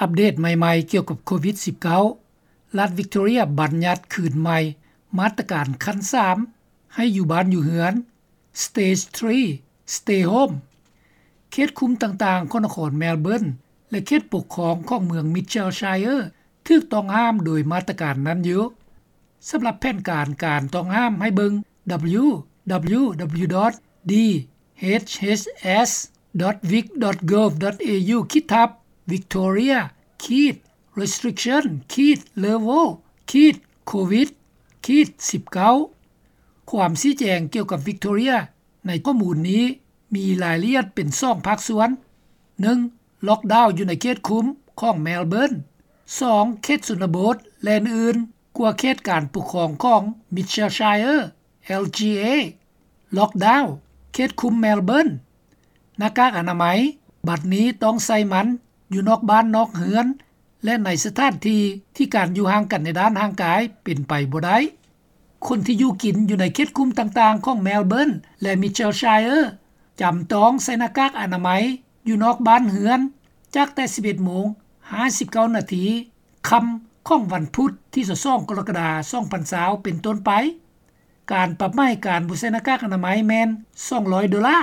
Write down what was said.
ອັບເດດໃໝ່ໆ ກ່ຽວກັບໂຄວິດ-19, ລັດວິກໂຕເຣຍບັນຍັດຄືນໃໝ່ມາດຕະການຂັ້ນສາມ ໃຫ້ຢູ່ບ້ານຢູ່ເຮືອນ Stage three Stay Home. ເຂດຄຸມຕ່າງໆຂອງນະຄອນແມລເບີນ ແລະ ເຂດປົກຄອງຂອງເມືອງ Mitchellshire ຖືກຕ້ອງຫ້າມໂດຍມາດຕະການນັ້ນຢູ່. ສຳລັບແຜນການການຕ້ອງຫ້າມໃຫ້ເບິ່ງ www.dhs.vic.gov.au ຂີດທັບ Victoria ຂີດ restriction ຂີດ level ຂີດ covid ຂີດ19. ຄວາມຊີ້ແຈງກ່ຽວກັບວິກໂຕເຣຍໃນຂໍ້ມູນນີ້ມີລາຍລະອຽດເປັນສອງພາກສ່ວນ: ໜຶ່ງ ລ໊ອກດາວຢູ່ໃນເຂດຄຸມຂອງແມລເບີນ, ສອງ ເຂດຊົນນະບົດ ແລະ ອື່ນໆ ກວ່າເຂດການປົກຄອງຂອງ Mitchellshire LGA. ລ໊ອກດາວ ເຂດຄຸມແມລເບີນ. ໜ້າກາກອະນາໄມ ບັດນີ້ຕ້ອງໃສ່ມັນຢູ່ນອກບ້ານນອກເຮືອນ ແລະ ໃນສະຖານທີ່ທີ່ການຢູ່ຫ່າງກັນໃນດ້ານຮ່າງກາຍເປັນໄປບໍ່ໄດ້. ຄົນທີ່ຢູ່ກິນຢູ່ໃນເຂດຄຸມຕ່າງໆຂອງແມລເບີນ ແລະ Mitchellshire ຈຳຕ້ອງໃສ່ໜ້າກາກອະນາໄມຢູ່ນອກບ້ານເຮືອນ ຈາກແຕ່ສິບເອັດໂມງຫ້າສິບເກົ້ານາທີຄ່ຳຂອງວັນພຸດທີຊາວສອງ ກໍລະກະດາ ສອງພັນຊາວ ເປັນຕົ້ນໄປ. ການປັບໃໝການບໍ່ໃສ່ໜ້າກາກອະນາໄມແມ່ນສອງຮ້ອຍໂດລາ